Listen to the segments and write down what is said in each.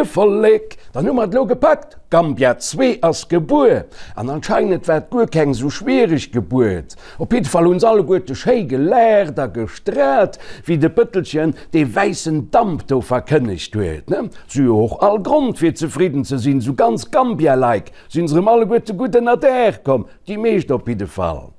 Moie Vollek, dann hu mer et elo gepackt, Gambia 2 ass gebuer. An anscheinend war et guer keng esou schwiereg Gebuert. Op jidde Fall hunn se alleguerte schéi gelaacht a gestraalt, wéi de Bëttelchen dee wäissen Damp do verkënnegt huet. Si hu jo och all Grond fir zefridden ze sinn, esou ganz Gambia-like sinn se erëm alleguerte gutt ënner Daach komm, déi meescht op jidde Fall.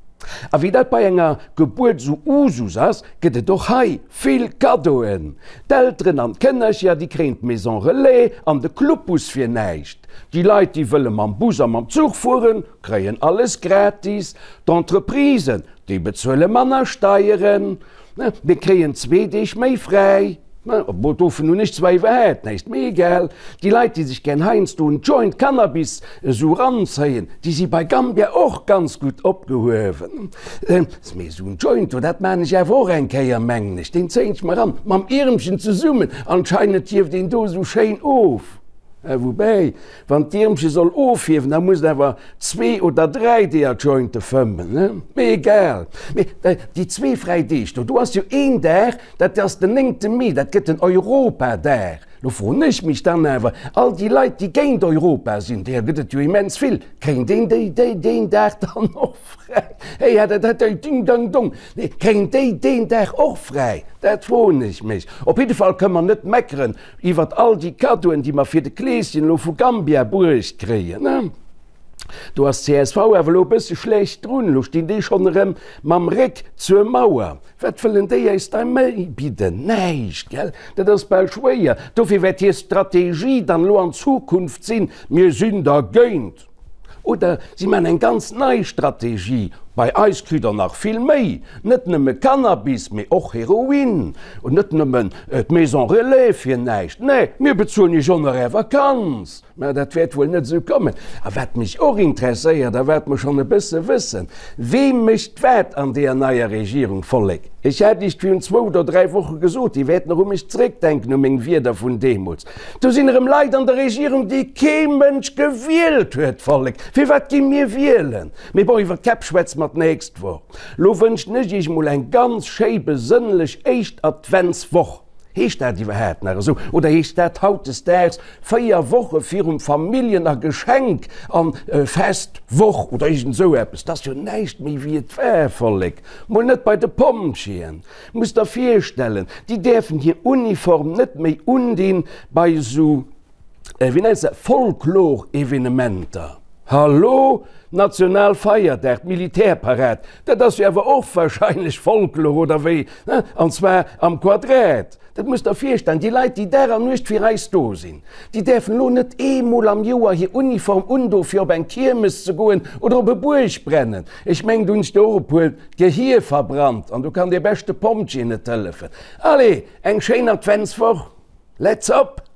A wéi dat bei enger Gebuert esou Usus ass, gëtt et och hei vill Kaddoen. D'Elteren an d'Kënnercher, déi kréien d'Maison Relais an de Clubbus fir näischt. Déi Leit, déi wëlle mam Bus a mam Zuch fueren, kréien alles gratis. D'Entreprisen, déi bezuele manner Steieren. Mir kréien zwee Deeg méi fräi. Obwuel, dovun hunn ech zwar iwwerhaapt näischt, mee egal. Déi Leit, déi sech gär heiansdo en Joint Cannabis esou eranzéien, déi si bei Gambia och ganz gutt opgehuewen. Mee esou en Joint do, dat maan ech awer och eng Kéier, mengen ech. Deen zéien ech mer eran, mam Iermchen zesummen. Anscheinend hieft een do esou schéin of. Woubäi, Wann d'Iermche soll ofhiewen, da muss et awer zwee oder dräi deeër Jointe fëmmen, ne? Mee egal. Mee déi zwee fräi Deeg do, do ass jo een Dag, dat ass den néngte Mee, dat gëtt den Europadag. Lo froen ech mech dann awer, all déi Leit, déi géint Europa sinn, deeër gëtt et jo immens vill, kréien déi déi deen Dag dann och fräi? Hey, ja, dat dat ding dang dong. Nee, kréien déi deen Dag och fräi? Dat froen ech mech. Op jidde Fall kënne mer net meckeren, Iwwert all déi Kaddoen, déi mer fir de Kleeschen elo vu Gambia bruecht kréien, ne? Do ass csv awer elo e bësse schlecht drun. Elo stinn déi schonn erëm mam Réck zur Mauer. Wat wëllen déi eis da méi bidden? Näischt, gell? Dat ass bal schwéier. Dofir wäert hir Strategie dann elo an Zukunft sinn, Mir sinn dergéint. Oder si maachen eng ganz nei Strategie, Bei eis kritt der nach vill méi, net nëmme Cannabis, mee och Heroin, und net nëmmen d'Maison Relais fir näischt, nee, mir bezuelen iech och nach är Vakanz. Mä dat wäert wuel net esou kommen. A wat mech och interesséiert a wat mer schonn e bësse wëssen, Wee mécht wat an deeër neier Regierung, Vollek? Ech hat iech virun zwou oder dräi Woche gesot, Dir wäert nach u mech zréckdenken, u meng Wierder vun deemools. Do sinn erëm Leit an der Regierung, déi kee Mënsch gewielt huet, Vollek. Firwat gi mir wielen? Mee bon, iwwer d'Käpp schwätze mer d'nächst Woch. Lo wënschen ech iech mol eng ganz schéi besënnlech éischt Adventswoch. Heescht dat iwwerhaapt nach esou? Oder heescht dat hautdesdaags 4 Woche virum Familljen a Geschenk an Festwoch oder iergend esou eppes? Dat ass jo näischt méi wéi et war, Vollek. Mol net bei de Pompjeeën. Muss der virstellen, déi däerfen hir Uniform net méi undinn bei esou, wéi nennt se, Folklor-Evenementer. Hallo? Nationalfeierdag, d'Militärparad, dat ass jo awer och wahrscheinlech Folklor, oder wéi? An zwar am Quadrat. Dat muss der virstellen, déi Leit, déi Dag an Nuecht fir eis do sinn, déi däerfen elo net eemol am Joer hir Uniform undo fir op eng Kiermes ze goen oder op e Buergbrennen. Ech mengen, do hunn ech der och e puer d'Gehier verbrannt an do kann dee beschte Pompjee net hëllefen. Allez, eng schéin Adventswoch, let's up!